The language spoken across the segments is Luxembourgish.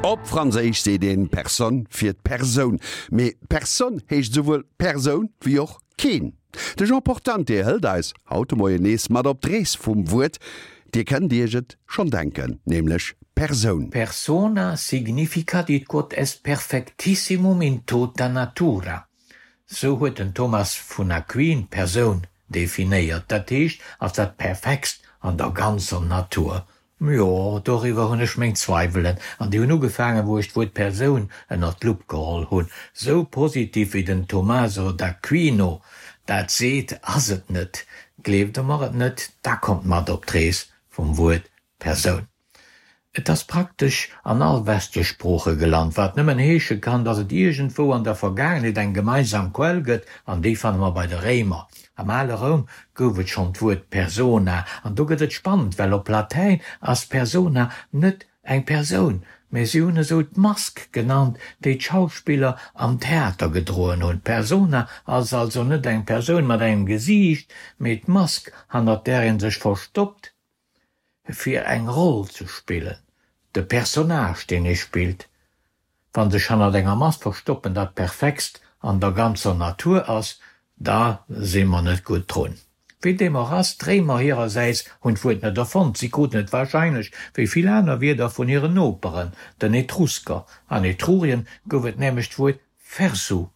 Op Franséisch seet een personne fir d'Persoun, mee Personne heescht esouwuel Persoun wéi och keen. De Jean Portante hëlt eis haut de Moien nees mat op d'Rees vum Wuert. Dir kënnt Iech et schonn denken, nämlech Persoun. Persona significat id quod est perfectissimum in tota natura. Sou huet den Thomas vun Aquin d'Persoun definéiert, dat heescht als dat Perfektst an der ganzer Natur. Jo, doriwwer hunn ech meng Zweiwelen, an déi hunn ugefaangen, wou ech d'Wuert Persoun ënnert d'Lupp geholl hunn. Sou positiv wéi den Tommaso d'Aquino dat seet, ass et net. Gleeft Der mer et net, da kommt mat op d'Rees vum Wuert Persoun. Et ass praktesch an all westlech Sprooche gelant, wat nëmmen heesche kann, datt et iergendwou an der Vergaangenheet eng gemeinsam Quell gëtt, an déi fanne mer bei de Réimer. Am ale Roum gouf et schonn d'Wuert persona, an do gëtt et spannend, well op Latäin ass persona net eng Persoun, mä si hunn esou d'Mask genannt, déi d'Schauspiller am Theater gedroen hunn. D'Persona ass also net eng Persoun mat engem Gesiicht, mee d'Mask, hannert där ee sech verstoppt, fir eng Roll ze spillen, de Personnage, deen ee spillt. Wann sech hannert enger Mask verstoppen dat Perfektst an der ganzer Natur ass, da si mer net gutt drun. Wéi deem och ass, d'Réimer hirersäits hunn d'Wuert net erfonnt, si kruten et warscheinlech, wéi vill aner Wierder, vun hiren Noperen, den Etrusker. An Etrurien gouf et nämlech d'Wuert phersu,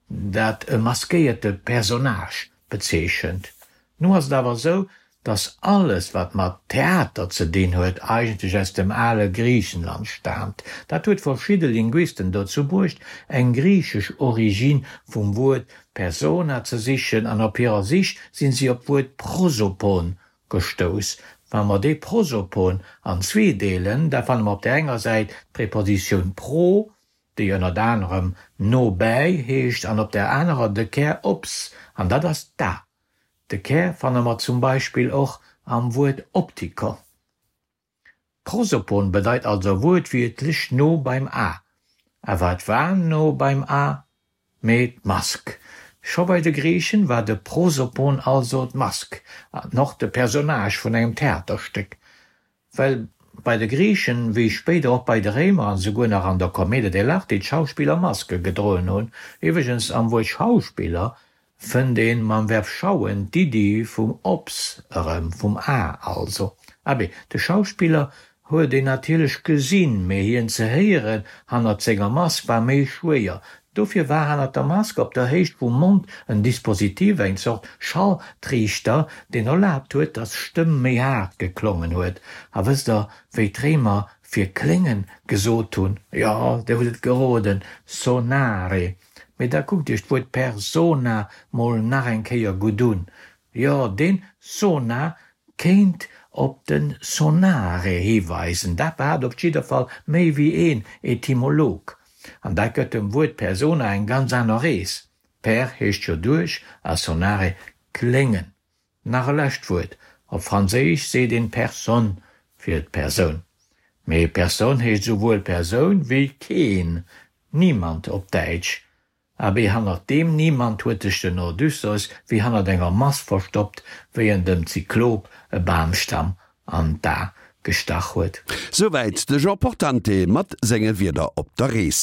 dat e maskéierte Personnage bezeechent. Nu ass et awer esou, dass alles wat mat Theater ze dinn huet, eigentlech aus dem ale Griichenland staamt. Dat huet verschidde Linguisten dozou bruecht, eng griichesch Origine vum Wuert persona ze sichen, an op hirer Sich sinn si op d'Wuert prosopon gestouss. Wa mer dee prosopon an zwee deelen, da fanne mer op där enger Säit d'Prepositioun pro, déi ënnert anerem no bäi heescht, an op där anerer de Kär ops, an dat ass d'a. De Kär fanne mer zum Beispill och am Wuert Optiker. Prosopon bedeit also wuertwiertlech no beim A. A wat war no beim A? Mee d'Mask. Scho bei de Griichen war de Prosopon also d'Mask, an och de Personnage vun engem Theaterstéck. Well bei de Griichen, wéi spéider och bei de Réimer an esouguer nach an der Commedia dell'arte, d'Schauspiller Maske gedroen hunn. Iwwregens, am Wuert Schauspiller fënnt een mam Verb schauen d'Iddi vum ops erëm, vum A also. Abee, de Schauspiller huet een natierlech gesinn, mee hien ze héieren hannert senger Mask war méi schwéier. Dofir war hannert der Mask op der Héicht vum Mond en Dispositif, eng Zort Schalltriichter, deen erlaabt huet, datt d'Stëmm méi haart geklongen huet. A wësst der, wéi d'Réimer fir kléngen gesot hunn? Jo, dir hutt et geroden, sonare. Mee da kuckt iech d'Wuert persona mol nach eng Kéier gutt un. Jo, deen sona kéint op den sonare hiweisen. Dat behaapt op jidder Fall méi wéi een Etymolog. An dat gëtt dem Wuert persona eng ganz aner Rees. Per heescht jo duerch a sonare kléngen. Nach e lescht Wuert, Op Franséisch seet een personne fir d'Persoun. Mee personne heescht esouwuel Persoun wéi keen, niemand op Däitsch. Abee, hannert deem Niemand huet sech den Odysseus wéi hannert enger Mask verstoppt, wéi en dem Zyklop e Bamstamm an d'A gestach huet. Souwäit de Jean Portante mat senge Wierder op der Rees.